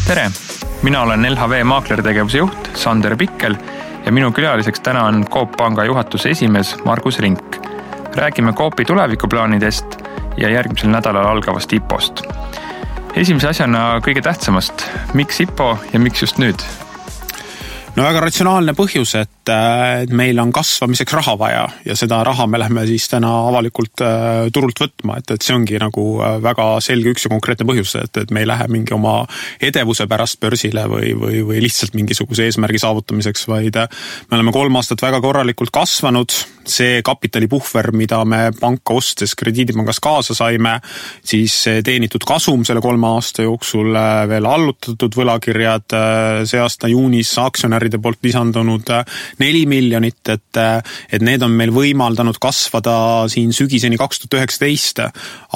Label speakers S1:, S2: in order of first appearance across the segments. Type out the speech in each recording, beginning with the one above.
S1: Tere! Mina olen LHV maaklertegevuse juht Sander Pikkel ja minu külaliseks täna on Coop Panga juhatuse esimees Margus Rink. Räägime Coopi tulevikuplaanidest ja järgmisel nädalal algavast IPO-st. Esimese asjana kõige tähtsamast, miks IPO ja miks just nüüd?
S2: No väga ratsionaalne põhjus, et meil on kasvamiseks raha vaja ja seda raha me lähme siis täna avalikult turult võtma, et see ongi nagu väga selge üks ja konkreetne põhjus, et me ei lähe mingi oma edevuse pärast börsile või lihtsalt mingisuguse eesmärgi saavutamiseks, vaid me oleme 3 aastat väga korralikult kasvanud. See kapitalipuhver, mida me panka ostes krediidipangast kaasa saime, siis teenitud kasum selle 3 aasta jooksul veel allutatud võlakirjad, see aasta juunis aktsionäride poolt lisandunud 4 miljonit, et need on meil võimaldanud kasvada siin sügiseni 2019,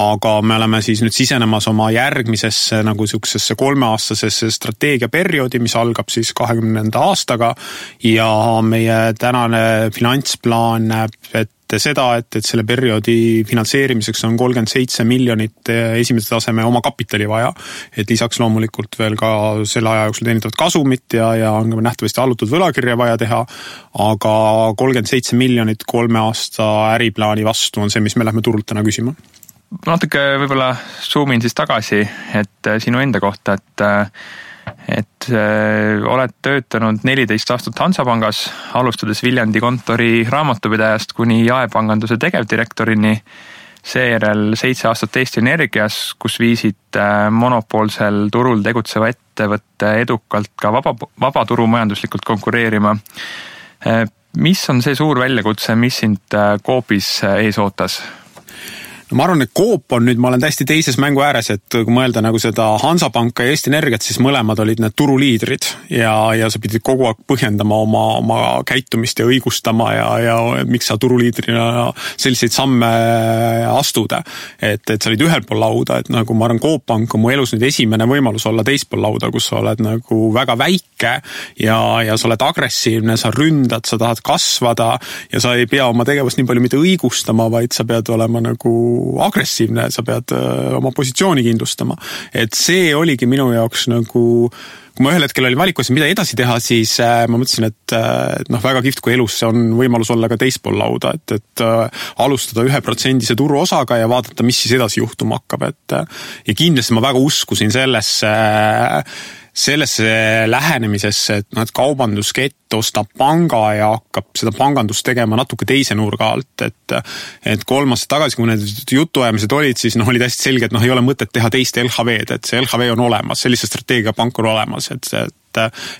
S2: aga me oleme siis nüüd sisenemas oma järgmisesse nagu siuksesse 3-aastasesse strateegiaperioodi, mis algab siis 2020. aastaga ja meie tänane finantsplaan näeb ette seda, et selle perioodi finantseerimiseks on 37 miljonit esimese taseme oma kapitali vaja, et lisaks loomulikult veel ka selle aja jooksul teenitavat kasumit ja on nähtavasti allutud võlakirja vaja teha, aga 37 miljonit 3 aasta äriplaani vastu on see, mis me lähme turult täna küsima.
S1: Natuke võib-olla zoomin siis tagasi, et sinu enda kohta, et oled töötanud 14 aastat Hansapangas, alustades Viljandi kontori raamatupidajast kuni jaepanganduse tegevdirektorini, seejärel 7 aastat Eesti Energias, kus viisid monopoolsel turul tegutseva ettevõtte edukalt ka vabaturumajanduslikult konkureerima. Mis on see suur väljakutse, mis sind Coopis ees ootas?
S2: No ma arvan, et Coop on nüüd, ma olen täiesti teises mängu ääres, et kui mõelda nagu seda Hansapanka ja Eesti Energiat, siis mõlemad olid need turuliidrid ja sa pidid kogu aeg põhjendama oma käitumist ja õigustama ja miks sa turuliidrina selliseid samme astuda. Et sa olid ühel pool lauda, et nagu ma arvan, Coop Pank on mu elus nüüd esimene võimalus olla teist pool lauda, kus sa oled nagu väga väike ja sa oled agressiivne, sa ründad, sa tahad kasvada ja sa ei pea oma tegevust nii palju mitte õigustama, vaid sa pead olema nagu agressiivne, sa pead oma positsiooni kindlustama. Et see oligi minu jaoks nagu, kui ma ühel hetkel oli valikus, mida edasi teha, siis ma mõtlesin, et väga kihvt, kui elus on võimalus olla ka teist pool lauda, et alustada 1% turuosaga ja vaadata, mis siis edasi juhtuma hakkab. Ja kindlasti ma väga uskusin sellesse lähenemisesse, et kaubanduskett ostab panga ja hakkab seda pangandust tegema natuke teise nurga alt, et 3 aastat tagasi, kui need jutuajamised olid, siis oli täiesti selge, et ei ole mõtet teha teist LHV-d, et see LHV on olemas, sellise strateegiapank on olemas, et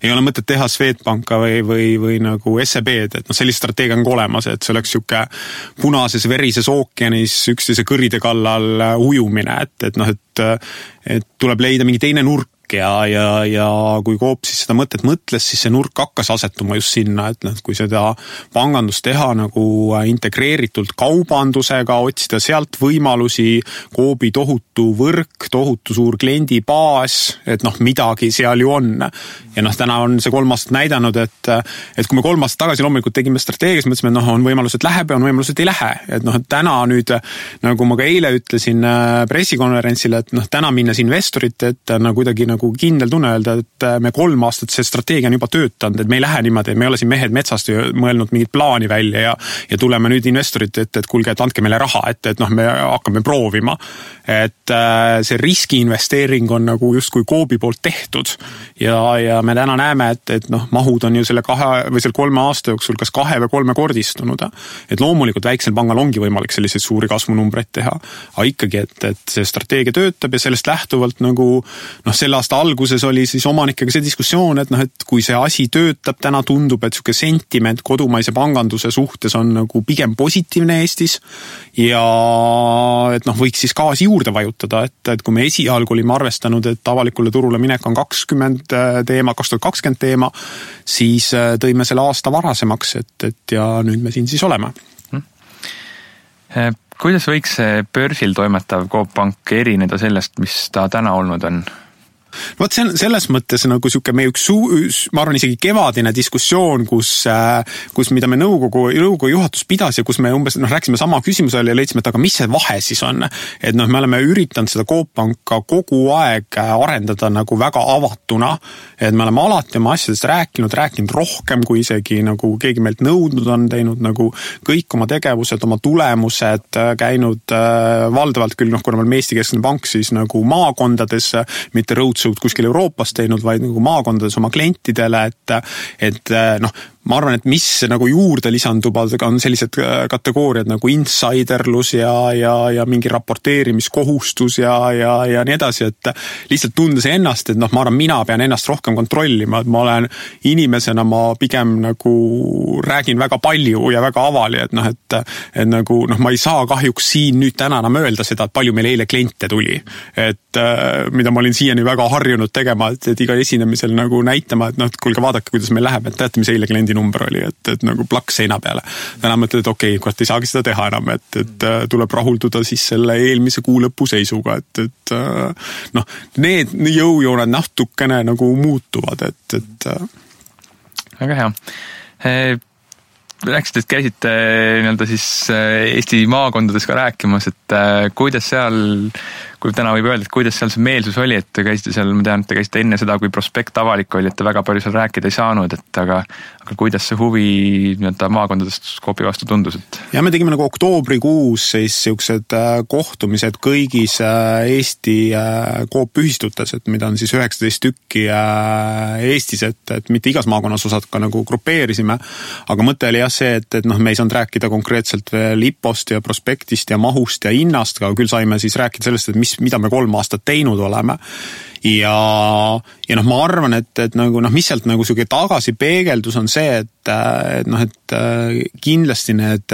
S2: ei ole mõtet teha Swedbanka või nagu SEB-d, et sellise strateegia on olemas, et see oleks siuke punases verises ookeanis üksteise kõride kallal ujumine, et tuleb leida mingi teine nurk ja kui Coop siis seda mõtet mõtles, siis see nurk hakkas asetuma just sinna, et kui seda pangandust teha nagu integreeritult kaubandusega, otsida sealt võimalusi, Coopi tohutu võrk, tohutu suur kliendibaas, et midagi seal ju on. Ja täna on see 3 aastat näidanud, et kui me 3 aastat tagasi loomulikult tegime strateegias, mõtlesime, et on võimalus, et läheb ja on võimalus, et ei lähe. Et täna nüüd, nagu ma ka eile ütlesin pressikonverentsil, et täna minnes investorite, et kuidagi nagu kindel tunne öelda, et me 3 aastat see strateegia on juba töötanud, et me ei lähe niimoodi, et me ei ole siin mehed metsast mõelnud mingit plaani välja ja tuleme nüüd investorite, et kuulge, et andke meile raha, et me hakkame proovima. Et see riskiinvesteering on nagu justkui Coopi poolt tehtud ja me täna näeme, et mahud on ju selle 3 aasta jooksul kas 2 või 3 kordistunud. Et loomulikult väiksel pangal ongi võimalik selliseid suuri kasvunumbreid teha, aga ikkagi, et see strateegia töötab ja sellest lähtuvalt nagu selle aasta alguses oli siis omanikega see diskussioon, et kui see asi töötab, täna tundub, et siuke sentiment kodumaise panganduse suhtes on nagu pigem positiivne Eestis ja et võiks siis gaasi juurde vajutada, et kui me esialgu olime arvestanud, et avalikule turule minek on 2020 teema, siis tõime selle aasta varasemaks, et ja nüüd me siin siis oleme.
S1: Kuidas võiks see börsil toimetav Coop Pank erineda sellest, mis ta täna olnud on?
S2: Vot see on selles mõttes nagu siuke meie ma arvan isegi kevadine diskussioon, kus mida me nõukogu juhatus pidas ja kus me umbes rääkisime sama küsimusele ja leidsime, et aga mis see vahe siis on? Et me oleme üritanud seda Coop Panka kogu aeg arendada nagu väga avatuna, et me oleme alati oma asjadest rääkinud rohkem, kui isegi nagu keegi meilt nõudnud on, teinud nagu kõik oma tegevused, oma tulemused, käinud valdavalt küll, kuna me oleme Eesti Keskne Pank, siis nagu maakondades, mitte roadshow'd kuskil Euroopas teinud, vaid nagu maakondades oma klientidele, et ma arvan, et mis nagu juurde lisandub, on sellised kategooriad nagu insiderlus ja mingi raporteerimiskohustus ja nii edasi, et lihtsalt tundes ennast, et ma arvan, mina pean ennast rohkem kontrollima, et ma olen inimesena, ma pigem nagu räägin väga palju ja väga avali, et nagu, ma ei saa kahjuks siin nüüd täna enam öelda seda, et palju meil eile kliente tuli, et mida ma olin siiani väga harjunud tegema, et iga esinemisel nagu näitama, et kuulge, vaadake, kuidas meil läheb, et teate, mis eile kliendi number oli, et nagu plaks seina peale. Täna mõtled, et okei, kurat, ei saagi seda teha enam, et tuleb rahulduda siis selle eelmise kuu lõpu seisuga, et need jõujooned natukene nagu muutuvad, et
S1: väga hea. Rääkisite, et käisite nii-öelda siis Eesti maakondades ka rääkimas, et kuidas seal, kui täna võib öelda, et kuidas seal see meelsus oli, et te käisite seal, ma tean, et te käisite enne seda, kui prospekt avalik oli, et te väga palju seal rääkida ei saanud, et aga kuidas see huvi nii-öelda maakondadest Coopi vastu tundus?
S2: Ja me tegime nagu oktoobrikuus siis siuksed kohtumised kõigis Eesti Coop ühistutes, et mida on siis 19 tükki Eestis, et mitte igas maakonnas osad ka nagu grupeerisime, aga mõte oli jah see, et me ei saanud rääkida konkreetselt veel IPO-st ja prospektist ja mahust ja hinnast, aga küll saime siis rääkida sellest, et mida me 3 aastat teinud oleme. Ja ma arvan, et nagu, mis sealt nagu siuke tagasi peegeldus on see, et kindlasti need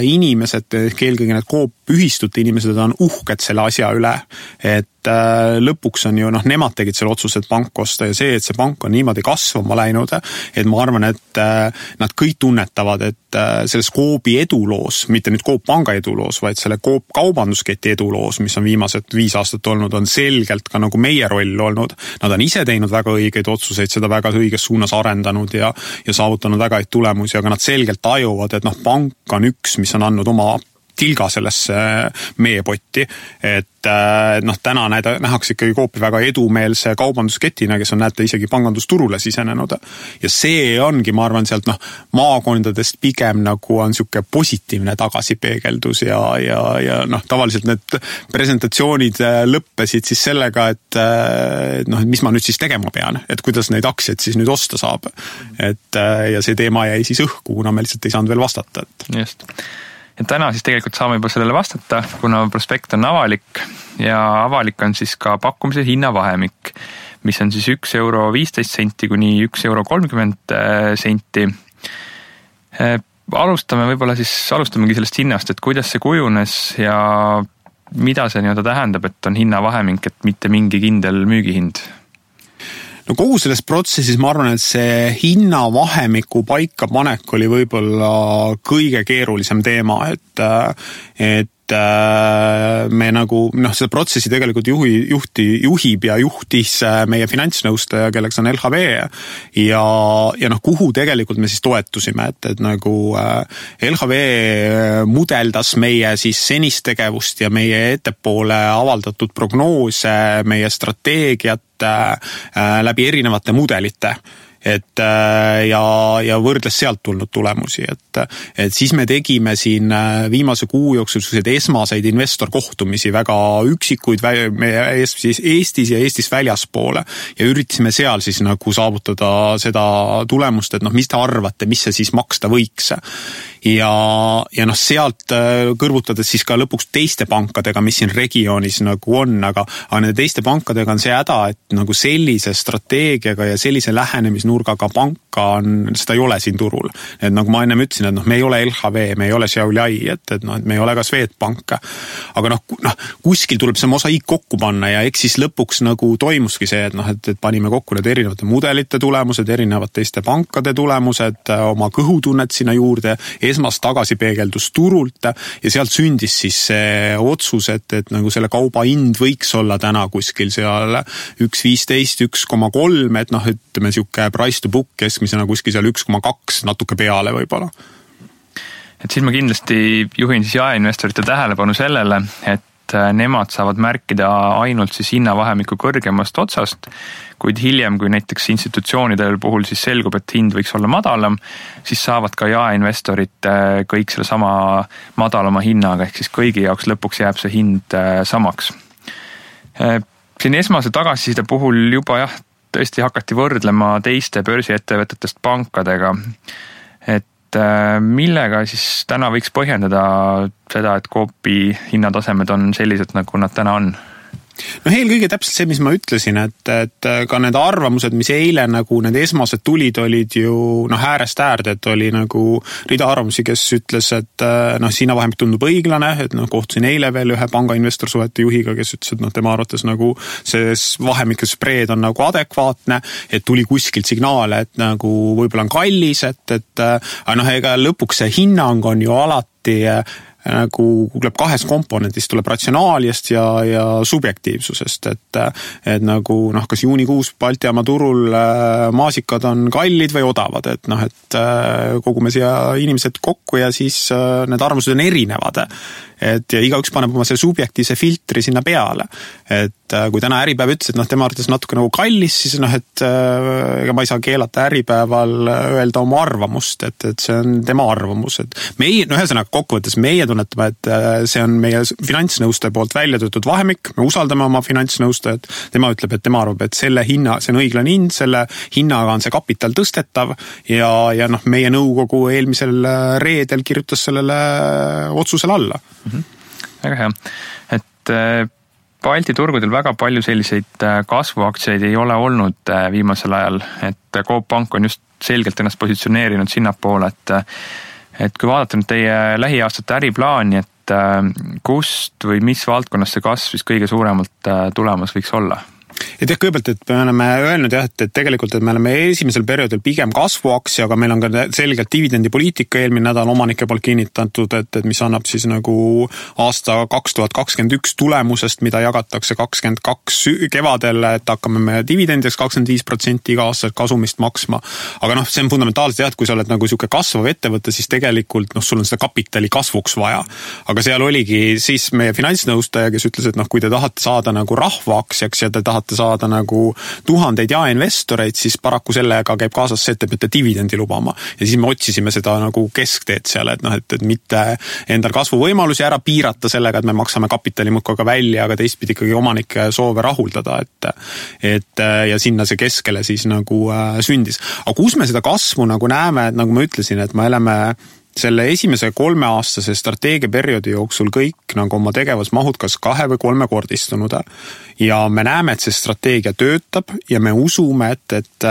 S2: inimesed, eelkõige need Coop ühistute inimesed on uhked selle asja üle, et lõpuks on ju, nemad tegid selle otsuse, et pank osta ja see, et see pank on niimoodi kasvama läinud, et ma arvan, et nad kõik tunnetavad, et selles Coopi eduloos, mitte nüüd Coop Panga eduloos, vaid selle Coop kaubandusketi eduloos, mis on viimased 5 aastat olnud, on selgelt ka nagu meie roll olnud. Nad on ise teinud väga õigeid otsuseid, seda väga õiges suunas arendanud ja saavutanud väga häid tulemusi, aga nad selgelt tajuvad, et pank on üks, mis on andnud oma tilga sellesse meie potti, et täna nähakse ikkagi Coopi väga edumeelse kaubandusketina, kes on näete isegi pangandusturule sisenenud. Ja see ongi, ma arvan, sealt maakondadest pigem nagu on siuke positiivne tagasipeegeldus ja tavaliselt need presentatsioonid lõppesid siis sellega, et mis ma nüüd siis tegema pean, et kuidas neid aktsiaid siis nüüd osta saab. Ja see teema jäi siis õhku, kuna me lihtsalt ei saanud veel vastata.
S1: Just. Ja täna siis tegelikult saame juba sellele vastata, kuna prospekt on avalik ja avalik on siis ka pakkumise hinnavahemik, mis on siis €1.15 kuni €1.30. Alustamegi sellest hinnast, et kuidas see kujunes ja mida see nii-öelda tähendab, et on hinnavahemik, et mitte mingi kindel müügihind?
S2: No kogu selles protsessis ma arvan, et see hinnavahemiku paikapanek oli võib-olla kõige keerulisem teema, et me nagu, seda protsessi tegelikult juhib ja juhtis meie finantsnõustaja, kelleks on LHV ja kuhu tegelikult me siis toetusime, et nagu LHV mudeldas meie siis senist tegevust ja meie ettepoole avaldatud prognoose, meie strateegiat läbi erinevate mudelite. Ja võrdles sealt tulnud tulemusi, et siis me tegime siin viimase kuu jooksul esmaseid investorkohtumisi väga üksikuid Eestis ja Eestis väljaspoole ja üritasime seal siis nagu saavutada seda tulemust, et mis te arvate, mis see siis maksta võiks. Ja sealt kõrvutades siis ka lõpuks teiste pankadega, mis siin regioonis nagu on, aga nende teiste pankadega on see häda, et nagu sellise strateegiaga ja sellise lähenemisnurgaga panka seda ei ole siin turul. Et nagu ma ennem ütlesin, et me ei ole LHV, me ei ole Xiaoliai, et me ei ole ka Swedbank. Aga kuskil tuleb see mosaiik kokku panna ja eks siis lõpuks nagu toimuski see, et panime kokku need erinevate mudelite tulemused, erinevad teiste pankade tulemused, oma kõhutunnet sinna juurde, esmast tagasipeegeldus turult ja sealt sündis siis see otsus, et nagu selle kauba hind võiks olla täna kuskil seal 1.15, 1.3, et ütleme siuke price to book keskmisena kuskil seal 1.2 natuke peale võib-olla.
S1: Et siis ma kindlasti juhin siis jaeinvestorite tähelepanu sellele, et nemad saavad märkida ainult siis hinnavahemiku kõrgemast otsast, kuid hiljem, kui näiteks institutsioonidel puhul siis selgub, et hind võiks olla madalam, siis saavad ka jaeinvestorid kõik selle sama madalama hinnaga, ehk siis kõigi jaoks lõpuks jääb see hind samaks. Siin esmase tagasiside puhul juba tõesti hakati võrdlema teiste börsiettevõtetest pankadega, et millega siis täna võiks põhjendada seda, et Coopi hinnatasemed on sellised, nagu nad täna on?
S2: Eelkõige täpselt see, mis ma ütlesin, et ka need arvamused, mis eile nagu need esmased tulid, olid ju äärest äärde, et oli nagu rida arvamusi, kes ütles, et hinnavahemik tundub õiglane, et kohtusin eile veel ühe panga investorsuhete juhiga, kes ütles, et tema arvates nagu see vahemike spreed on nagu adekvaatne, et tuli kuskilt signaale, et nagu võib-olla on kallis, ega lõpuks see hinnang on ju alati nagu tuleb kahest komponendist, tuleb ratsionaaliast ja subjektiivsusest, et nagu kas juunikuus Baltijaama turul maasikad on kallid või odavad, et kogume siia inimesed kokku ja siis need arvamused on erinevad, ja igaüks paneb oma selle subjektiivse filtri sinna peale, et kui täna Äripäev ütles, et tema arvates natuke nagu kallis, siis ega ma ei saa keelata Äripäeval öelda oma arvamust, et see on tema arvamus, et meie, ühesõnaga kokkuvõttes meie tunnetame, et see on meie finantsnõustaja poolt välja töötud vahemik, me usaldame oma finantsnõustajat, tema ütleb, et tema arvab, et selle hinna, see on õiglane hind, selle hinnaga on see kapital tõstetav ja meie nõukogu eelmisel reedel kirjutas sellele otsusele alla.
S1: Väga hea, et Balti turgudel väga palju selliseid kasvuaktsiaid ei ole olnud viimasel ajal, et Coop Pank on just selgelt ennast positsioneerinud sinnapoole, et kui vaadata nüüd teie lähiaastate äriplaani, et kust või mis valdkonnas see kasv siis kõige suuremalt tulemas võiks olla?
S2: Et kõigepealt, et me oleme öelnud et tegelikult, et me oleme esimesel perioodil pigem kasvuaktsia, aga meil on ka selgelt dividendipoliitika eelmine nädal omanike poolt kinnitatud, et mis annab siis nagu aasta 2021 tulemusest, mida jagatakse 22 kevadel, et hakkame me dividendideks 25% iga aastaselt kasumist maksma. Aga see on fundamentaalselt et kui sa oled nagu siuke kasvav ettevõte, siis tegelikult sul on seda kapitali kasvuks vaja. Aga seal oligi siis meie finantsnõustaja, kes ütles, et kui te tahate saada nagu rahvaaktsiaks ja te tahate saada nagu tuhandeid jaeinvestoreid, siis paraku sellega käib kaasas see, et te peate dividendi lubama. Ja siis me otsisime seda nagu keskteed seal, et mitte endal kasvuvõimalusi ära piirata sellega, et me maksame kapitali muudkui välja, aga teistpidi ikkagi omanike soove rahuldada, et ja sinna see keskele siis nagu sündis. Aga kus me seda kasvu nagu näeme, et nagu ma ütlesin, et me oleme selle esimese 3-aastase strateegiaperioodi jooksul kõik nagu oma tegevusmahud kas 2 või 3 kordistunud. Ja me näeme, et see strateegia töötab ja me usume, et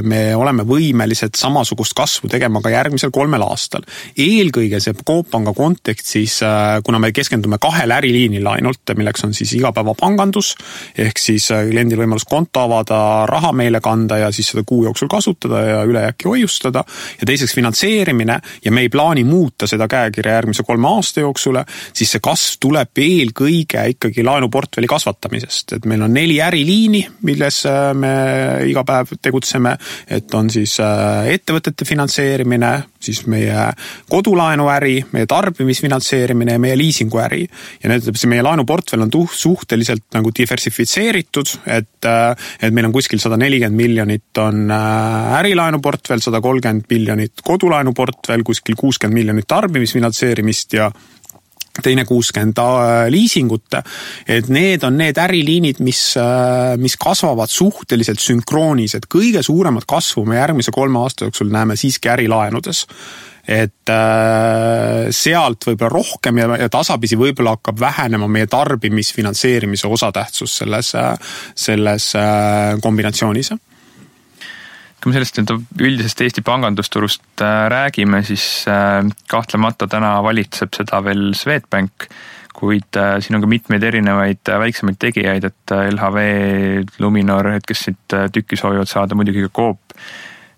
S2: me oleme võimelised samasugust kasvu tegema ka järgmisel 3 aastal. Eelkõige see Coop Panga kontekstis, kuna me keskendume 2 äriliinil ainult, milleks on siis igapäevapangandus, ehk siis kliendil võimalus konto avada, raha meile kanda ja siis seda kuu jooksul kasutada ja ülejääki hoiustada. Ja teiseks finantseerimine ja me ei plaani muuta seda käekirja järgmise 3 aasta jooksul, siis see kasv tuleb eelkõige ikkagi laenuportfelli kasvatamisest. Et meil on 4 äriliini, milles me iga päev tegutseme, et on siis ettevõtete finantseerimine, siis meie kodulaenuäri, meie tarbimisfinantseerimine ja meie liisinguäri. Ja meie laenuportfell on suhteliselt nagu diversifitseeritud, et meil on kuskil 140 miljonit on ärilaenuportfell, 130 miljonit kodulaenuportfell, kuskil 60 miljonit tarbimisfinantseerimist ja teine 60 liisingut, et need on need äriliinid, mis kasvavad suhteliselt sünkroonis, et kõige suuremat kasvu me järgmise 3 aasta jooksul näeme siiski ärilaenudes. Et sealt võib-olla rohkem ja tasapisi võib-olla hakkab vähenema meie tarbimisfinantseerimise osatähtsus selles kombinatsioonis.
S1: Kui me sellest üldisest Eesti pangandusturust räägime, siis kahtlemata täna valitseb seda veel Swedbank, kuid siin on ka mitmeid erinevaid väiksemaid tegijaid, et LHV, Luminor, kes siit tükki soovivad saada, muidugi ka Coop.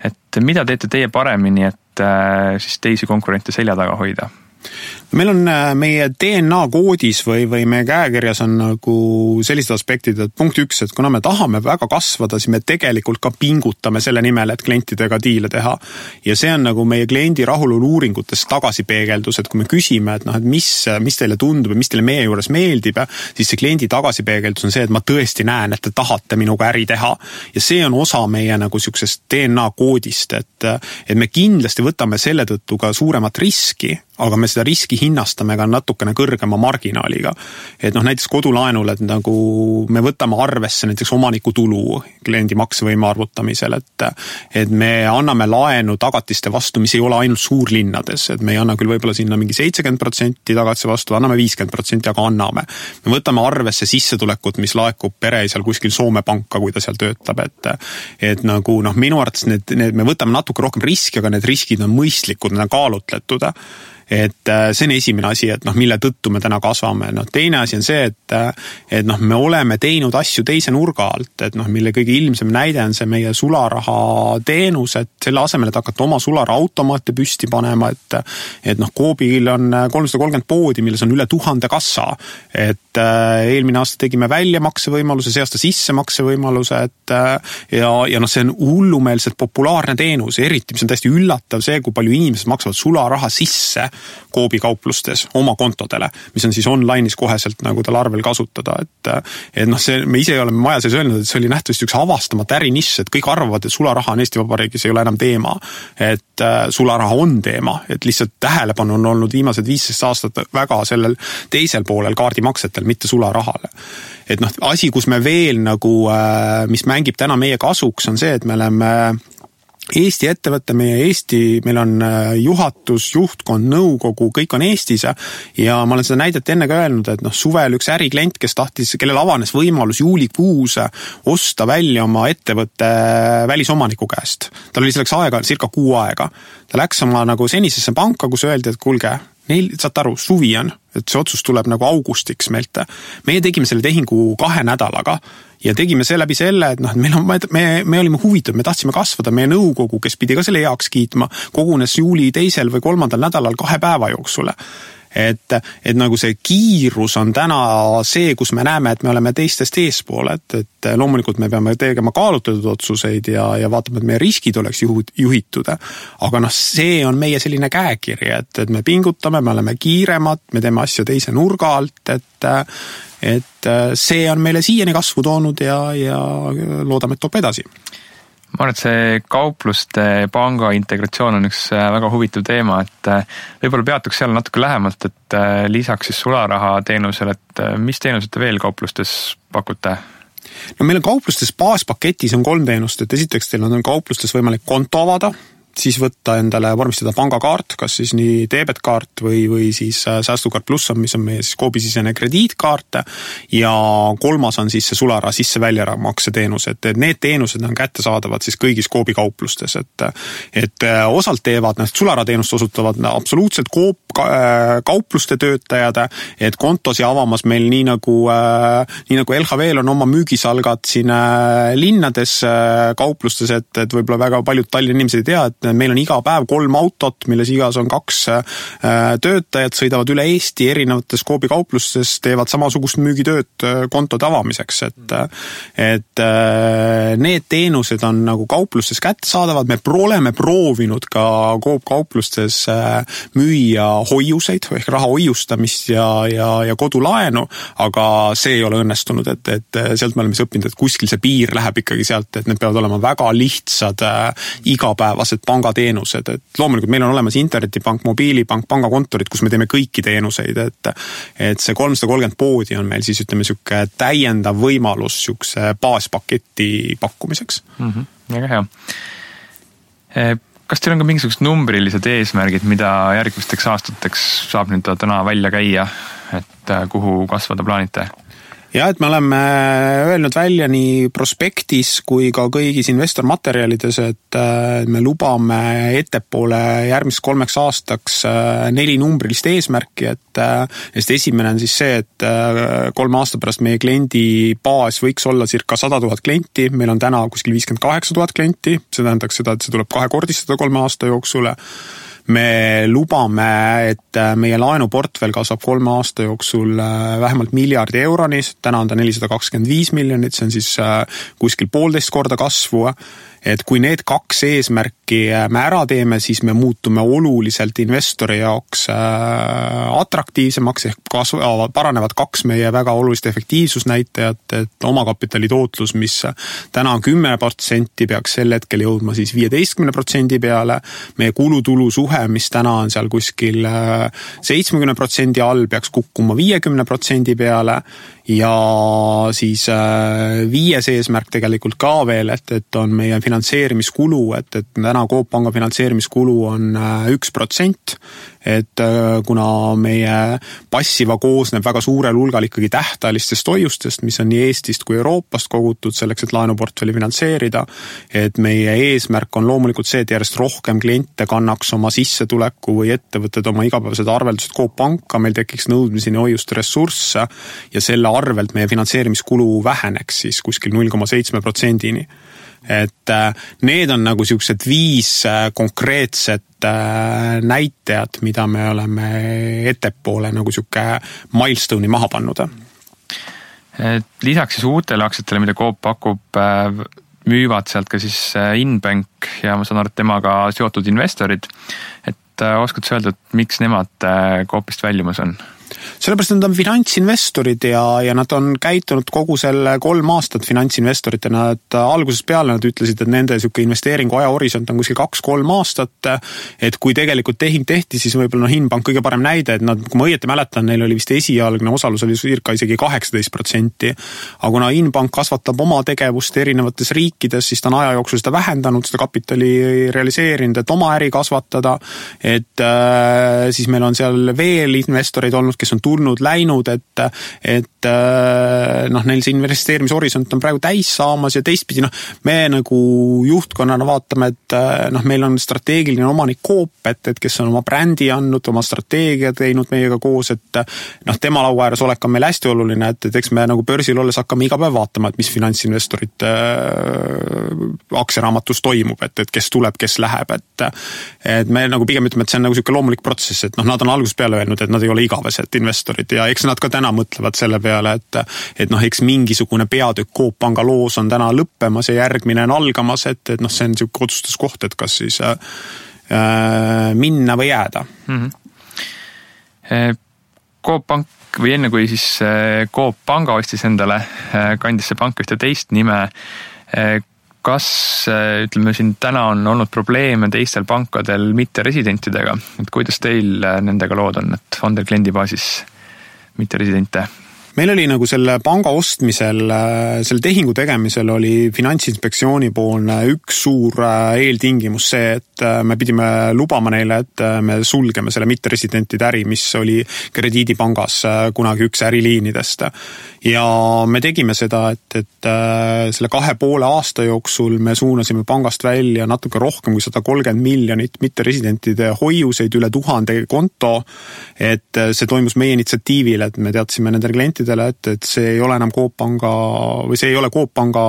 S1: Et mida teete teie paremini, et et siis teisi konkurente selja taga hoida?
S2: Meil on meie DNA koodis või meie käekirjas on nagu sellised aspektid, et punkt 1, et kuna me tahame väga kasvada, siis me tegelikult ka pingutame selle nimel, et klientidega diile teha. Ja see on nagu meie kliendi rahulolu uuringutes tagasipeegeldus, et kui me küsime, et mis teile tundub ja mis teile meie juures meeldib, siis see kliendi tagasipeegeldus on see, et ma tõesti näen, et te tahate minuga äri teha. Ja see on osa meie nagu siuksest DNA koodist, et me kindlasti võtame selle tõttu ka suuremat riski, aga me seda riski hinnastame ka natukene kõrgema marginaaliga. Et näiteks kodulaenul, et nagu me võtame arvesse näiteks omaniku tulu kliendi maksevõime arvutamisel, et me anname laenu tagatiste vastu, mis ei ole ainult suurlinnades, et me ei anna küll võib-olla sinna mingi 70% tagatise vastu, anname 50%, aga anname. Me võtame arvesse sissetulekut, mis laekub pereisal kuskil Soome panka, kui ta seal töötab, et nagu minu arvates me võtame natuke rohkem riski, aga need riskid on mõistlikud, need on kaalutletud. Et see on esimene asi, et mille tõttu me täna kasvame. Teine asi on see, et me oleme teinud asju teise nurga alt, et mille kõige ilmsem näide on see meie sularaha teenus, et selle asemel, et hakata oma sularaha automaate püsti panema, et Coopil on 330 poodi, milles on üle 1000 kassa, et eelmine aasta tegime väljamaksevõimaluse, see aasta sissemaksevõimaluse, ja see on hullumeelselt populaarne teenus, eriti mis on täiesti üllatav see, kui palju inimesed maksavad sularaha sisse Coopi kauplustes oma kontodele, mis on siis online'is koheselt nagu tal arvel kasutada, et me ise oleme maja sees öelnud, et see oli nähtavasti üks avastamata ärinišš, et kõik arvavad, et sularaha on Eesti Vabariigis ei ole enam teema, et sularaha on teema, et lihtsalt tähelepanu on olnud viimased 15 aastat väga sellel teisel poolel kaardimaksetel, mitte sularahale. Et asi, kus me veel nagu, mis mängib täna meie kasuks, on see, et me oleme Eesti ettevõtte, meil on juhatus, juhtkond, nõukogu, kõik on Eestis ja ma olen seda näidet enne ka öelnud, et suvel üks äriklient, kellel avanes võimalus juulikuus osta välja oma ettevõtte välisomaniku käest. Tal oli selleks aega, circa 6 aega. Ta läks oma nagu senisesse panka, kus öeldi, et kuulge, saate aru, suvi on, et see otsus tuleb nagu augustiks meilt. Meie tegime selle tehingu 2 nädalaga ja tegime see läbi selle, et me olime huvitatud, me tahtsime kasvada, meie nõukogu, kes pidi ka selle heaks kiitma, kogunes juuli 2. või 3. nädalal 2 päeva jooksul. Et nagu see kiirus on täna see, kus me näeme, et me oleme teistest eespool, et loomulikult me peame tegema kaalutletud otsuseid ja vaatama, et meie riskid oleks juhitud, aga see on meie selline käekiri, et me pingutame, me oleme kiiremad, me teeme asju teise nurga alt, et see on meile siiani kasvu toonud ja loodame, et toob edasi.
S1: Ma arvan, et see kaupluste panga integratsioon on üks väga huvitav teema, et võib-olla peatuks seal natuke lähemalt, et lisaks siis sularaha teenusele, et mis teenused te veel kauplustes pakute?
S2: Meil on kauplustes baaspaketis on 3 teenust, et esiteks teil on kauplustes võimalik konto avada, siis võtta endale vormistada pangakaart, kas siis nii debetkaart või siis säästukaart pluss, mis on meie siis Coopi-sisene krediitkaart ja 3. on siis see sularaha sisse-välja-makse teenus, et need teenused on kättesaadavad siis kõigis Coopi kauplustes, et osalt teevad sularaha teenust osutavad absoluutselt kaupluste töötajad, et kontosi avamas meil nii nagu LHV-l on oma müügisalgad siin linnades kauplustes, et võib-olla väga paljud Tallinna inimesed ei tea, et meil on iga päev 3 autot, milles igas on 2 töötajad, sõidavad üle Eesti erinevates Coopi kauplustes, teevad samasugust müügitööd kontode avamiseks, et need teenused on nagu kauplustes kättesaadavad, me oleme proovinud ka Coop kauplustes müüa hoiuseid ehk raha hoiustamist ja kodulaenu, aga see ei ole õnnestunud, et sealt me oleme õppinud, et kuskil see piir läheb ikkagi sealt, et need peavad olema väga lihtsad igapäevased pangateenused, et loomulikult meil on olemas internetipank, mobiilipank, pangakontorid, kus me teeme kõiki teenuseid, et see 330 poodi on meil siis selline täiendav võimalus selline baaspaketi pakkumiseks.
S1: Väga hea. Kas teil on ka mingisugused numbrilised eesmärgid, mida järgmisteks aastateks saab nüüd täna välja käia, et kuhu kasvada plaanite?
S2: Ja, et me oleme öelnud välja nii prospektis kui ka kõigis investormaterjalides, et me lubame ettepoole järgmiseks 3 aastaks 4 numbrilist eesmärki, et esimene on siis see, et 3 aasta pärast meie kliendi baas võiks olla circa 100 000 klienti, meil on täna kuskil 58 000 klienti, see tähendaks seda, et see tuleb 2-kordistada 3 aasta jooksul. Me lubame, et meie laenuportfell kasvab 3 aasta jooksul vähemalt miljardi euroni, täna on ta 425 miljonit, see on siis kuskil 1,5 korda kasvu. Et kui need 2 eesmärki me ära teeme, siis me muutume oluliselt investori jaoks atraktiivsemaks, ehk paranevad 2 meie väga olulist efektiivsusnäitajat, et omakapitali tootlus, mis täna on 10%, peaks sel hetkel jõudma siis 15% peale. Meie kulutulu suhe, mis täna on seal kuskil 70% all, peaks kukkuma 50% peale. Ja siis 5. eesmärk tegelikult ka veel, et on meie finantseerimiskulu, et täna Coop Panga finantseerimiskulu on 1%, et kuna meie passiva koosneb väga suurel hulgal ikkagi tähtajalistest hoiustest, mis on nii Eestist kui Euroopast kogutud selleks, et laenuportfelli finantseerida, et meie eesmärk on loomulikult see, et järjest rohkem kliente kannaks oma sissetuleku või ettevõtted oma igapäevased arveldused Coop Panka, meil tekiks nõudmiseni hoiuste ressursse ja selle arvelt meie finantseerimiskulu väheneks siis kuskil 0,7%-ni. Et need on nagu siuksed 5 konkreetset näitajad, mida me oleme ettepoole nagu siuke milestone'i maha pannud.
S1: Lisaks siis uutele aktsiatele, mida Coop pakub, müüvad sealt ka siis Inbank ja ma saan aru, et temaga seotud investorid. Et oskad sa öelda, et miks nemad Coopist väljumas on?
S2: Sellepärast nad on finantsinvestorid ja nad on käitunud kogu selle 3 aastat finantsinvestoritena, et algusest peale nad ütlesid, et nende siuke investeeringu ajahorisont on kuskil 2-3 aastat, et kui tegelikult tehing tehti, siis võib-olla Inbank kõige parem näide, et nad, kui ma õieti mäletan, neil oli vist esialgne osalus oli circa isegi 18%, aga kuna Inbank kasvatab oma tegevust erinevates riikides, siis ta on aja jooksul seda vähendanud, seda kapitali realiseerinud, et oma äri kasvatada, et siis meil on seal veel investoreid olnud, kes on tulnud, läinud, et neil see investeerimishorisont on praegu täis saamas ja teistpidi, me nagu juhtkonnana vaatame, et meil on strateegiline omanik Coop, et kes on oma brändi andnud, oma strateegia teinud meiega koos, et tema laua ääres olek on meil hästi oluline, et eks me nagu börsil olles hakkame iga päev vaatama, et mis finantsinvestorid aktsiaraamatus toimub, et kes tuleb, kes läheb, et me nagu pigem ütleme, et see on nagu siuke loomulik protsess, et nad on algusest peale öelnud, et nad ei ole igavesed investorid ja eks nad ka täna mõtlevad selle peale, et eks mingisugune peatükk Coop Panga loos on täna lõppemas ja järgmine on algamas, et see on siuke otsustuskoht, et kas siis minna või jääda.
S1: Coop Pank või enne kui siis Coop Panga ostis endale, kandis see pank ühte teist nime, kas, ütleme siin, täna on olnud probleeme teistel pankadel mitteresidentidega, et kuidas teil nendega lood on, et on teil kliendibaasis mitteresidente?
S2: Meil oli nagu selle panga ostmisel, selle tehingu tegemisel oli Finantsinspektsiooni poolne üks suur eeltingimus see, et me pidime lubama neile, et me sulgeme selle mitteresidentide äri, mis oli krediidipangas kunagi üks äriliinidest. Ja me tegime seda, et selle 2,5 aasta jooksul me suunasime pangast välja natuke rohkem kui 130 miljonit mitteresidentide hoiuseid, üle 1000 konto, et see toimus meie initsiatiivil, et me teadsime nendele klientidele, et see ei ole enam Coop Panga või see ei ole Coop Panga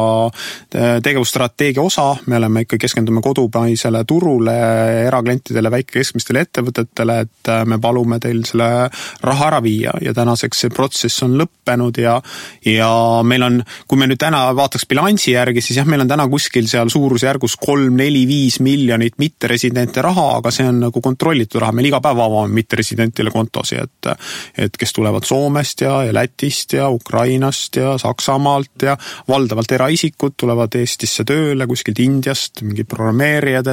S2: tegevusstrateegia osa, me oleme ikka keskendume kodupaisele turule, eraklientidele, väike-keskmistele ettevõtetele, et me palume teil selle raha ära viia ja tänaseks see protsess on lõppenud ja meil on, kui me nüüd täna vaataks bilansi järgi, siis jah, meil on täna kuskil seal suurusjärgus 3, 4, 5 miljonit mitteresidente raha, aga see on nagu kontrollitud raha, meil iga päev avame mitteresidentile kontosi, et kes tulevad Soomest ja Lätist ja Ukrainast ja Saksamaalt ja valdavalt eraisikud tulevad Eestisse tööle kuskilt Indiast, mingid programmeerijad,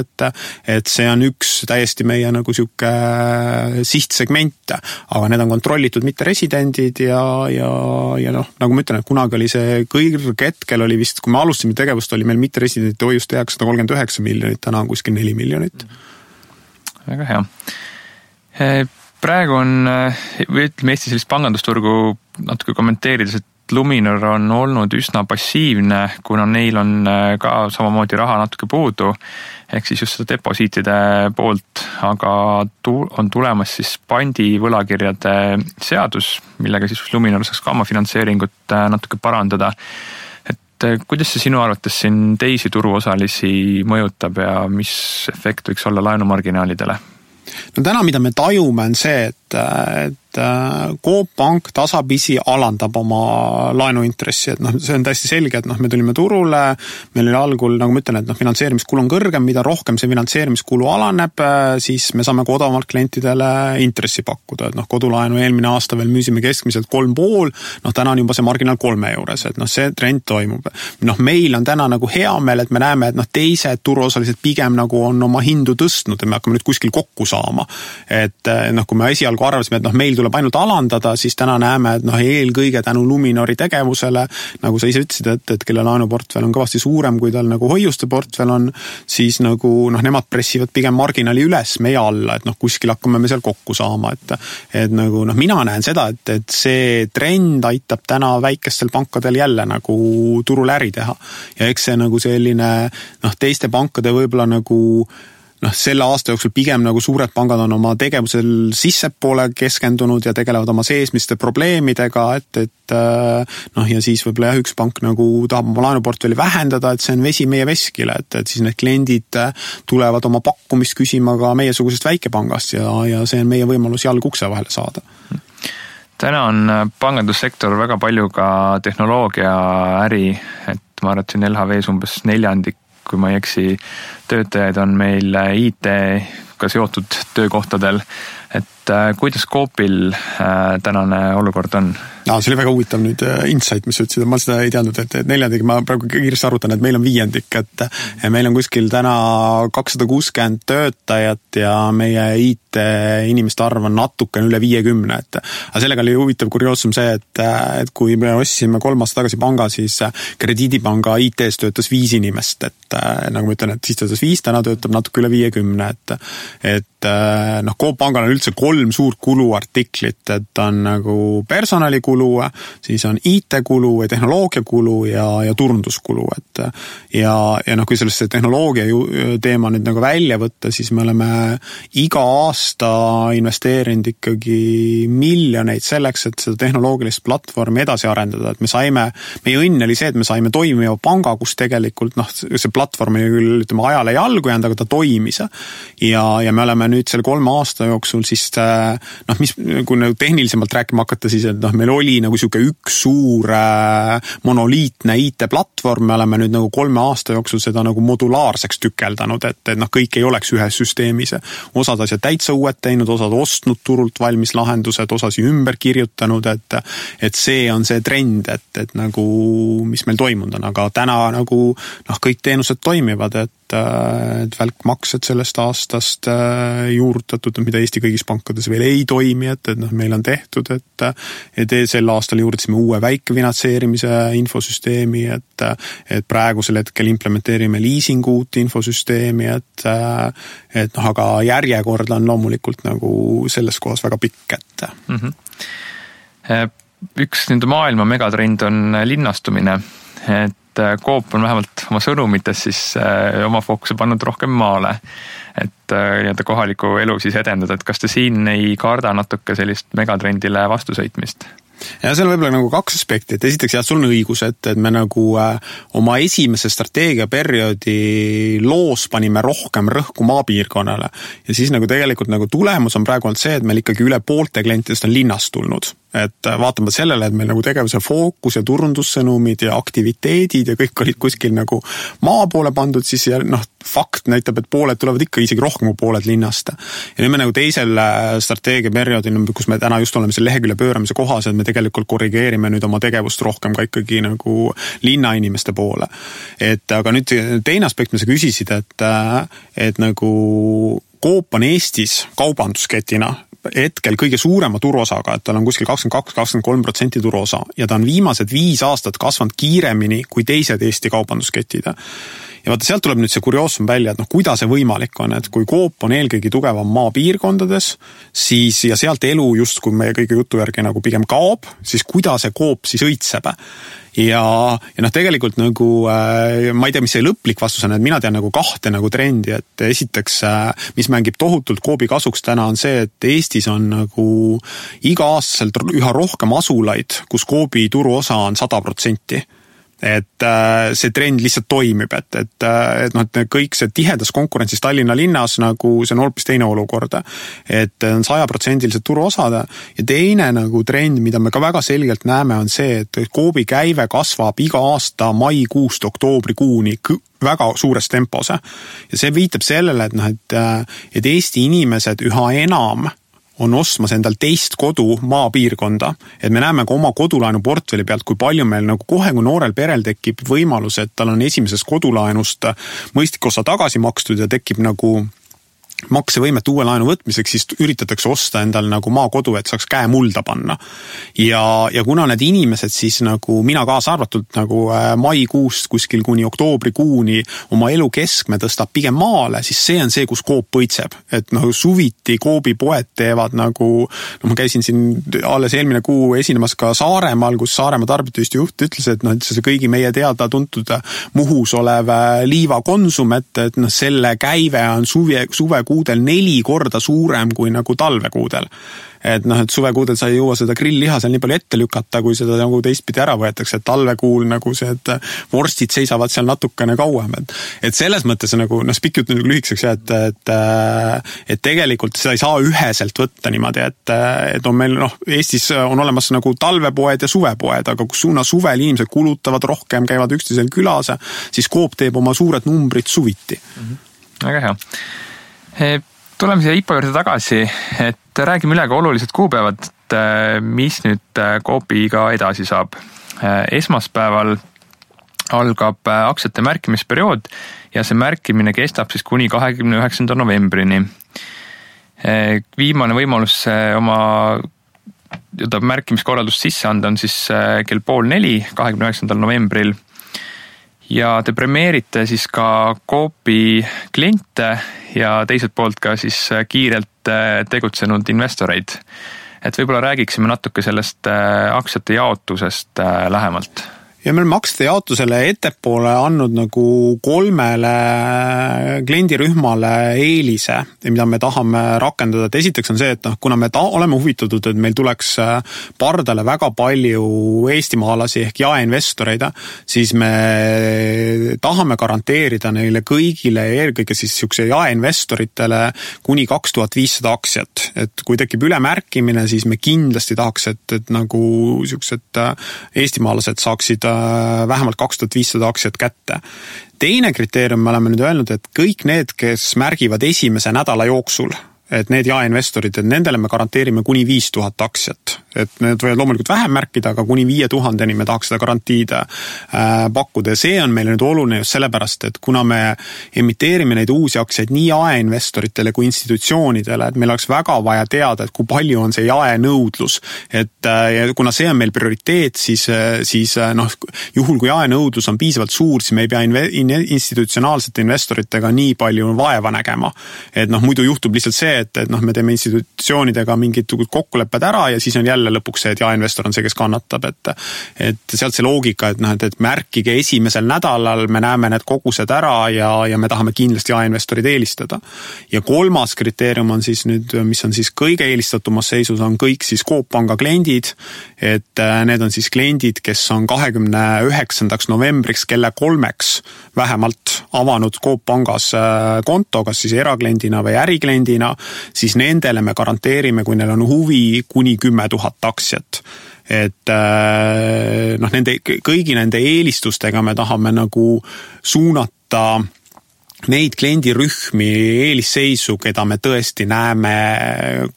S2: et see on üks täiesti meie nagu siuke sihtsegment, aga need on kontrollitud mitteresidendid ja nagu ma ütlen, et kunagi oli see kõrge hetkel oli vist, kui me alustasime tegevust, oli meil mitteresidentide hoiust 139 miljonit, täna on kuskil 4 miljonit.
S1: Väga hea. Praegu on, või ütleme Eesti sellist pangandusturgu natuke kommenteerides, et Luminor on olnud üsna passiivne, kuna neil on ka samamoodi raha natuke puudu, ehk siis just seda deposiitide poolt, aga on tulemas siis pandi võlakirjade seadus, millega siis Luminor saaks ka oma finantseeringut natuke parandada. Et kuidas see sinu arvates siin teisi turuosalisi mõjutab ja mis efekt võiks olla laenumarginaalidele?
S2: No täna, mida me tajume, on see, et Coop Pank tasapisi alandab oma laenuintressi, et see on täiesti selge, et me tulime turule, meil oli algul, nagu ma ütlen, et finantseerimiskulu on kõrgem, mida rohkem see finantseerimiskulu alaneb, siis me saame odavamalt klientidele intressi pakkuda, et kodulaenu eelmine aasta veel müüsime keskmiselt 3,5, täna on juba see marginaal 3 juures, et see trend toimub. Meil on täna nagu hea meel, et me näeme, et teised turuosalised pigem nagu on oma hindu tõstnud, et me hakkame nüüd kuskil kokku saama. Et kui me esialgu arvasime, et meil tuleb ainult alandada, siis täna näeme, et eelkõige tänu Luminori tegevusele, nagu sa ise ütlesid, et kelle laenuportfell on kõvasti suurem, kui tal nagu hoiuste portfell on, siis nagu nemad pressivad pigem marginaali üles meie alla, et kuskil hakkame me seal kokku saama, et nagu mina näen seda, et see trend aitab täna väikestel pankadel jälle nagu turul äri teha ja eks see nagu selline teiste pankade võib-olla nagu selle aasta jooksul pigem nagu suured pangad on oma tegevusel sissepoole keskendunud ja tegelevad oma seesmiste probleemidega, ja siis võib-olla üks pank nagu tahab oma laenuportfelli vähendada, et see on vesi meie veskile, et siis need kliendid tulevad oma pakkumist küsima ka meiesugusest väikepangast ja see on meie võimalus jalg ukse vahele saada.
S1: Täna on pangandussektor väga palju ka tehnoloogia äri, et ma arvan, LHV umbes 4%, kui ma ei eksi, töötajaid on meil IT-ga seotud töökohtadel, et kuidas Coopil tänane olukord on?
S2: See oli väga huvitav nüüd insight, mis ütlesid, ma seda ei teadnud, et 4, ma praegu kiiresti arvutan, et meil on 5, et meil on kuskil täna 260 töötajat ja meie IT-inimeste arv on natukene üle 50, aga sellega oli huvitav kurioosum see, et kui me ostsime 3 aasta tagasi panga, siis Krediidipanga IT-s töötas 5 inimest, et nagu ma ütlen, et siis töötas 5, täna töötab natuke üle 50, et Coop Pangal on üldse 3 suurt kuluartiklit, et on nagu personalikulu, siis on IT-kulu ja tehnoloogiakulu ja turunduskulu, kui sellest tehnoloogia teema nüüd nagu välja võtta, siis me oleme iga aasta investeerinud ikkagi miljoneid selleks, et seda tehnoloogilist platvormi edasi arendada, et meie õnn oli see, et me saime toimiva panga, kus tegelikult see platvorm oli küll ajale jalgu jäänud, aga ta toimis ja me oleme nüüd selle 3 aasta jooksul siis kui tehnilisemalt rääkima hakata, siis et meil oli nagu siuke üks suur monoliitne IT-platvorm, me oleme nüüd nagu 3 aasta jooksul seda nagu modulaarseks tükeldanud, et kõik ei oleks ühes süsteemis. Osad asjad täitsa uued teinud, osad ostnud turult valmis lahendused, osasi ümber kirjutanud, et see on see trend, et nagu mis meil toimunud on, aga täna nagu kõik teenused toimivad, et välkmaksed sellest aastast juurutatud, mida Eesti kõigis pankades veel ei toimi, et meil on tehtud, et sel aastal juurutasime uue väikefinantseerimise infosüsteemi, et praegusel hetkel implementeerime liisingu uut infosüsteemi, aga järjekord on loomulikult nagu selles kohas väga pikk,
S1: Üks nende maailma megatrend on linnastumine, et Coop on vähemalt oma sõnumites siis oma fookuse pannud rohkem maale, et kohaliku elu siis edendada, et kas te siin ei karda natuke sellist megatrendile vastusõitmist?
S2: Ja see on võib-olla nagu 2 aspekti, et esiteks sul on õigus, et me nagu oma esimese strateegiaperioodi loos panime rohkem rõhku maapiirkonnale ja siis nagu tegelikult nagu tulemus on praegu olnud see, et meil ikkagi üle poolte klientidest on linnast tulnud. Et vaatame sellele, et meil nagu tegevuse fookus ja turundussõnumid ja aktiviteedid ja kõik olid kuskil nagu maa poole pandud, siis fakt näitab, et pooled tulevad ikka isegi rohkem kui pooled linnast. Ja nüüd me nagu teisel strateegiaperioodil, kus me täna just oleme selle lehekülje pööramise kohas, et me tegelikult korrigeerime nüüd oma tegevust rohkem ka ikkagi nagu linnainimeste poole. Aga nüüd teine aspekt, mis sa küsisid, et nagu Coop on Eestis kaubandusketina hetkel kõige suurema turuosaga, et tal on kuskil 22-23% turuosa ja ta on viimased 5 aastat kasvanud kiiremini kui teised Eesti kaubandusketid. Ja vaata, sealt tuleb nüüd see kurioosum välja, et kuidas see võimalik on, et kui Coop on eelkõige tugevam maapiirkondades, siis ja sealt elu just, kui meie kõige jutu järgi nagu pigem kaob, siis kuidas see Coop siis õitseb. Ja tegelikult nagu, ma ei tea, mis see lõplik vastus on, et mina tean nagu 2 nagu trendi, et esiteks, mis mängib tohutult Coopi kasuks täna on see, et Eestis on nagu iga-aastaselt üha rohkem asulaid, kus Coopi turuosa on 100%. Et see trend lihtsalt toimib, et kõik see tihedas konkurentsis Tallinna linnas nagu see on hoopis teine olukord, et on 100% turuosad ja teine nagu trend, mida me ka väga selgelt näeme, on see, et Coopi käive kasvab iga aasta maikuust oktoobrikuuni väga suures tempos ja see viitab sellele, et Eesti inimesed üha enam on ostmas endal teist kodu maapiirkonda, et me näeme ka oma kodulaenu portfelli pealt, kui palju meil nagu kohe, kui noorel perel tekib võimalus, et tal on esimesest kodulaenust mõistlik osa tagasi makstud ja tekib nagu maksevõimet uue laenu võtmiseks, siis üritatakse osta endal nagu maakodu, et saaks käe mulda panna. Ja kuna need inimesed siis nagu mina kaasa arvatult nagu maikuust kuskil kuni oktoobrikuuni oma elu keskme tõstab pigem maale, siis see on see, kus Coop põitseb. Et suviti Coopi poed teevad nagu, ma käisin siin alles eelmine kuu esinemas ka Saaremaal, kus Saaremaa tarbijatühistu juht ütles, et see kõigi meie teada tuntud Muhus olev Liiva Konsum, et selle käive on suvekuudel 4 korda suurem kui nagu talvekuudel. Et suvekuudel sa ei jõua seda grillliha seal nii palju ette lükata, kui seda nagu teistpidi ära võetakse, et talvekuul nagu see, et vorstid seisavad seal natukene kauem. Et selles mõttes nagu, spikk jutt nagu lühikseks, et tegelikult seda ei saa üheselt võtta niimoodi, et on meil, Eestis on olemas nagu talvepoed ja suvepoed, aga kus suvel inimesed kulutavad rohkem, käivad üksteisel külas, siis Coop teeb oma suured numbrid suviti.
S1: Väga hea. Tuleme siia IPO juurde tagasi, et räägime üle ka olulised kuupäevad, mis nüüd Coopiga edasi saab. Esmaspäeval algab aktsiate märkimisperiood ja see märkimine kestab siis kuni 29. novembrini. Viimane võimalus oma märkimiskorraldust sisse anda on siis kell 3:30, 29. novembril. Ja te premeerite siis ka Coopi kliente ja teiselt poolt ka siis kiirelt tegutsenud investoreid. Et võib-olla räägiksime natuke sellest aktsiate jaotusest lähemalt.
S2: Ja me oleme aktsiate jaotusele ettepoole andnud nagu 3 kliendirühmale eelise, mida me tahame rakendada. Et esiteks on see, et kuna me oleme huvitatud, et meil tuleks pardale väga palju eestimaalasi ehk jaeinvestoreid, siis me tahame garanteerida neile kõigile, eelkõige siis siukse jaeinvestoritele kuni 2500 aktsiat. Et kui tekib ülemärkimine, siis me kindlasti tahaks, et nagu siuksed eestimaalased saaksid vähemalt 2500 aktsiat kätte. Teine kriteerium me oleme nüüd öelnud, et kõik need, kes märgivad esimese nädala jooksul, et need jaeinvestorid, et nendele me garanteerime kuni 5000 aktsiat. Et need võivad loomulikult vähem märkida, aga kuni 5000-ni me tahaks seda garantiid pakkuda. Ja see on meile nüüd oluline just sellepärast, et kuna me emiteerime neid uusi aktsiaid nii jaeinvestoritele kui institutsioonidele, et meil oleks väga vaja teada, et kui palju on see jaenõudlus. Et ja kuna see on meil prioriteet, siis juhul kui jaenõudlus on piisavalt suur, siis me ei pea institutsionaalsete investoritega nii palju vaeva nägema. Et muidu juhtub lihtsalt see, et me teeme institutsioonidega mingid kokkulepped ära ja siis on jälle lõpuks see, et jaeinvestor on see, kes kannatab. Et sealt see loogika, et märkige esimesel nädalal, me näeme need kogused ära ja me tahame kindlasti jaeinvestorid eelistada. Ja 3. kriteerium on siis nüüd, mis on siis kõige eelistatumas seisus, on kõik siis Coop Panga kliendid, et need on siis kliendid, kes on 29. novembriks kella 3 vähemalt avanud Coop Pangas konto, kas siis erakliendina või ärikliendina, siis nendele me garanteerime, kui neil on huvi, kuni 10 000 aktsiat. Et kõigi nende eelistustega me tahame nagu suunata neid kliendirühmi eelisseisu, keda me tõesti näeme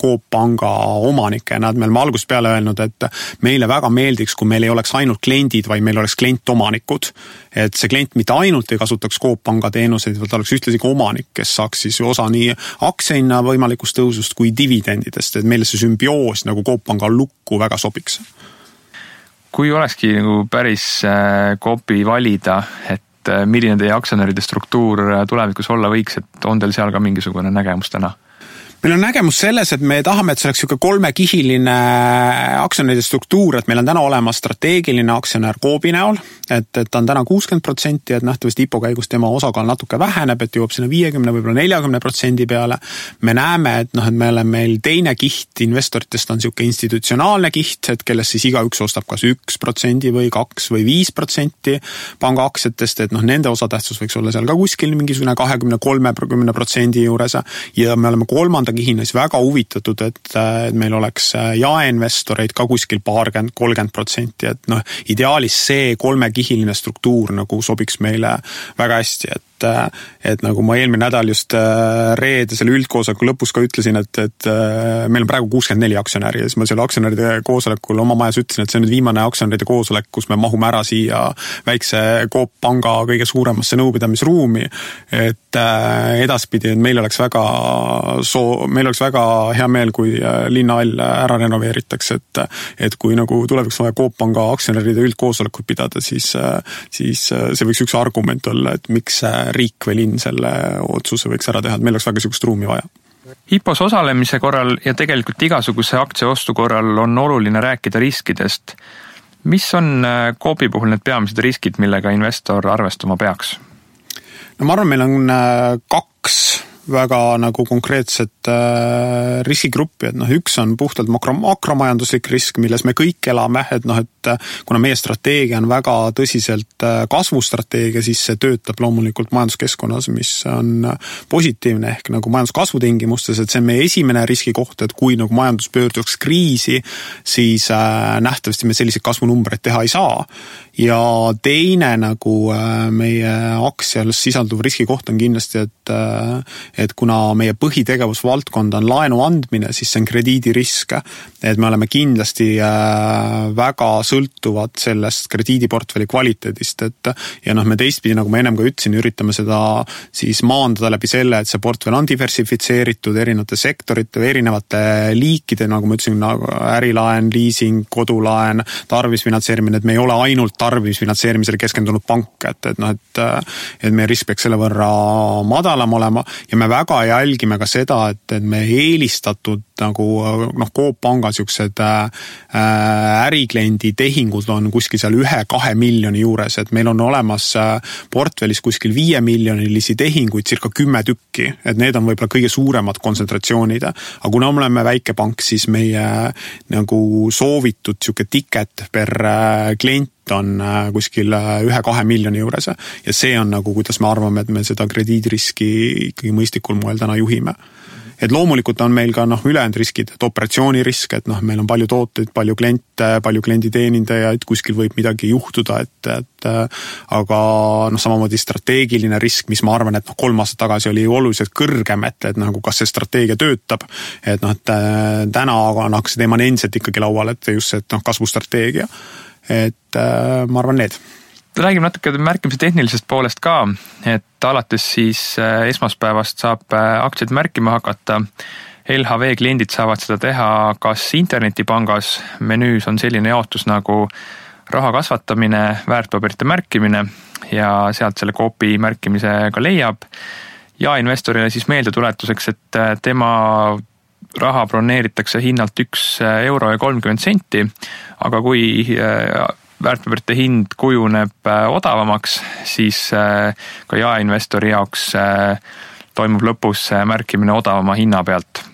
S2: Coop Panga omanikena, et me oleme algusest peale öelnud, et meile väga meeldiks, kui meil ei oleks ainult kliendid, vaid meil oleks klientomanikud. Et see klient mitte ainult ei kasutaks Coop Panga teenuseid, vaid oleks ühtlasi ka omanik, kes saaks siis osa nii aktsiahinna võimalikust tõusust kui dividendidest, et meile see sümbioos nagu Coop Panga lukku väga sobiks.
S1: Kui olekski nagu päris Coopi valida, et milline teie aktsionäride struktuur tulevikus olla võiks, et on teil seal ka mingisugune nägemus täna?
S2: Meil on nägemus selles, et me tahame, et see oleks kolmekihiline aktsionäride struktuur, et meil on täna olemas strateegiline aktsionär Coopi näol, et ta on täna 60%, et nähtavasti IPO käigus tema osakaal natuke väheneb, et jõuab sinna 50, võib-olla 40% peale. Me näeme, et me oleme meil teine kiht investoritest on siuke institutsionaalne kiht, et kellest siis igaüks ostab kas 1% või 2 või 5% panga aktsiatest, et nende osatähtsus võiks olla seal ka kuskil mingisugune 20-30% juures ja me oleme kolmanda kihina siis väga huvitatud, et meil oleks jaeinvestoreid ka kuskil 30%, et ideaalis see kolmekihiline struktuur nagu sobiks meile väga hästi, et nagu ma eelmine nädal just reedesel üldkoosoleku lõpus ka ütlesin, et meil on praegu 64 aktsionäri ja siis ma selle aktsionäride koosolekul oma majas ütlesin, et see on nüüd viimane aktsionäride koosolek, kus me mahume ära siia väikse Coop Panga kõige suuremasse nõupidamisruumi, et edaspidi meil oleks väga hea meel, kui linnahall ära renoveeritakse, et kui nagu tuleviks vaja Coop Panga aktsionäride üldkoosolekut pidada, siis see võiks üks argument olla, et miks riik või linn selle otsuse võiks ära teha, et meil oleks väga sihukest ruumi vaja.
S1: IPOs osalemise korral ja tegelikult igasuguse aktsiaostu korral on oluline rääkida riskidest. Mis on Coopi puhul need peamised riskid, millega investor arvestama peaks?
S2: No ma arvan, meil on 2 väga nagu konkreetset riskigruppi, et üks on puhtalt makromajanduslik risk, milles me kõik elame, et kuna meie strateegia on väga tõsiselt kasvustrateegia, siis see töötab loomulikult majanduskeskkonnas, mis on positiivne ehk nagu majanduskasvu tingimustes, et see on meie esimene riskikoht, et kui nagu majandus pöörduks kriisi, siis nähtavasti me selliseid kasvunumbreid teha ei saa. Ja teine nagu meie aktsial sisalduv riskikoht on kindlasti, et kuna meie põhitegevusvaldkond on laenu andmine, siis see on krediidirisk, et me oleme kindlasti väga sõltuvad sellest krediidiportfelli kvaliteedist, ja me teistpidi, nagu ma ennem ka ütlesin, üritame seda siis maandada läbi selle, et see portfell on diversifitseeritud erinevate sektorite või erinevate liikide, nagu ma ütlesin, nagu ärilaen, leasing, kodulaen, tarbimisfinantseerimine, et me ei ole ainult tarbimisfinantseerimisele keskendunud pank, et meie risk peaks selle võrra madalam olema ja me väga jälgime ka seda, et me eelistatud nagu Coop Panga siuksed ärikliendi tehingud on kuskil seal 1-2 miljoni juures, et meil on olemas portfellis kuskil 5 miljonilisi tehinguid circa 10 tükki, et need on võib-olla kõige suuremad kontsentratsioonid, aga kuna me oleme väike pank, siis meie nagu soovitud siuke ticket per klient on kuskil 1-2 miljoni juures ja see on nagu, kuidas me arvame, et me seda krediidiriski ikkagi mõistlikul moel täna juhime. Et loomulikult on meil ka ülejäänud riskid, et operatsioonirisk, et meil on palju tooteid, palju kliente, palju klienditeenindajaid, kuskil võib midagi juhtuda, aga samamoodi strateegiline risk, mis ma arvan, et 3 aastat tagasi oli oluliselt kõrgem, et nagu kas see strateegia töötab, et täna see teema on endiselt ikkagi laual, et just see kasvustrateegia. Et ma arvan need.
S1: Räägime natuke märkimise tehnilisest poolest ka, et alates siis esmaspäevast saab aktsiaid märkima hakata. LHV kliendid saavad seda teha kas internetipangas, menüüs on selline jaotus nagu raha kasvatamine, väärtpaberite märkimine ja sealt selle Coopi märkimise ka leiab. Ja investorile siis meeldetuletuseks, et tema raha broneeritakse hinnalt 1 € ja 30 €, aga kui väärtpaberite hind kujuneb odavamaks, siis ka jaeinvestori jaoks toimub lõpus märkimine odavama hinna pealt.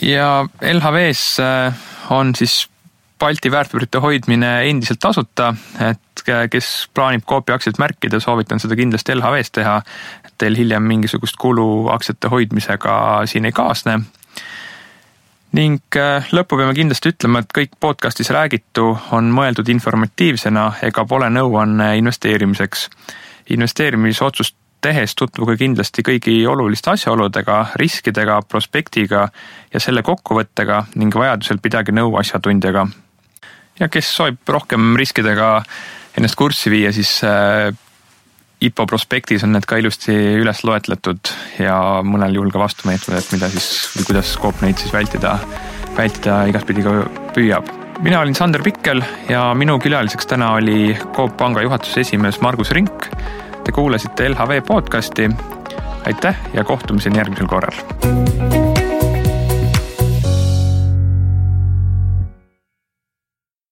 S1: Ja LHV-s on siis Balti väärtpaberite hoidmine endiselt tasuta, et kes plaanib Coopi aktsiaid märkida, soovitan seda kindlasti LHV-s teha, et teil hiljem mingisugust kulu aktsiate hoidmisega siin ei kaasne. Ning lõppu peame kindlasti ütlema, et kõik podcastis räägitu on mõeldud informatiivsena ega pole nõuanne investeerimiseks. Investeerimisotsust tehes tutvuge kindlasti kõigi oluliste asjaoludega, riskidega, prospektiga ja selle kokkuvõttega ning vajadusel pidage nõu asjatundjaga. Ja kes soovib rohkem riskidega ennast kurssi viia, siis IPO prospektis on need ka ilusti üles loetletud ja mõnel juhul ka vastumeetmed, et mida siis või kuidas Coop neid siis vältida igaspidi ka püüab. Mina olin Sander Pikkel ja minu külaliseks täna oli Coop Panga juhatuse esimees Margus Rink. Te kuulasite LHV podcasti. Aitäh ja kohtumiseni järgmisel korral.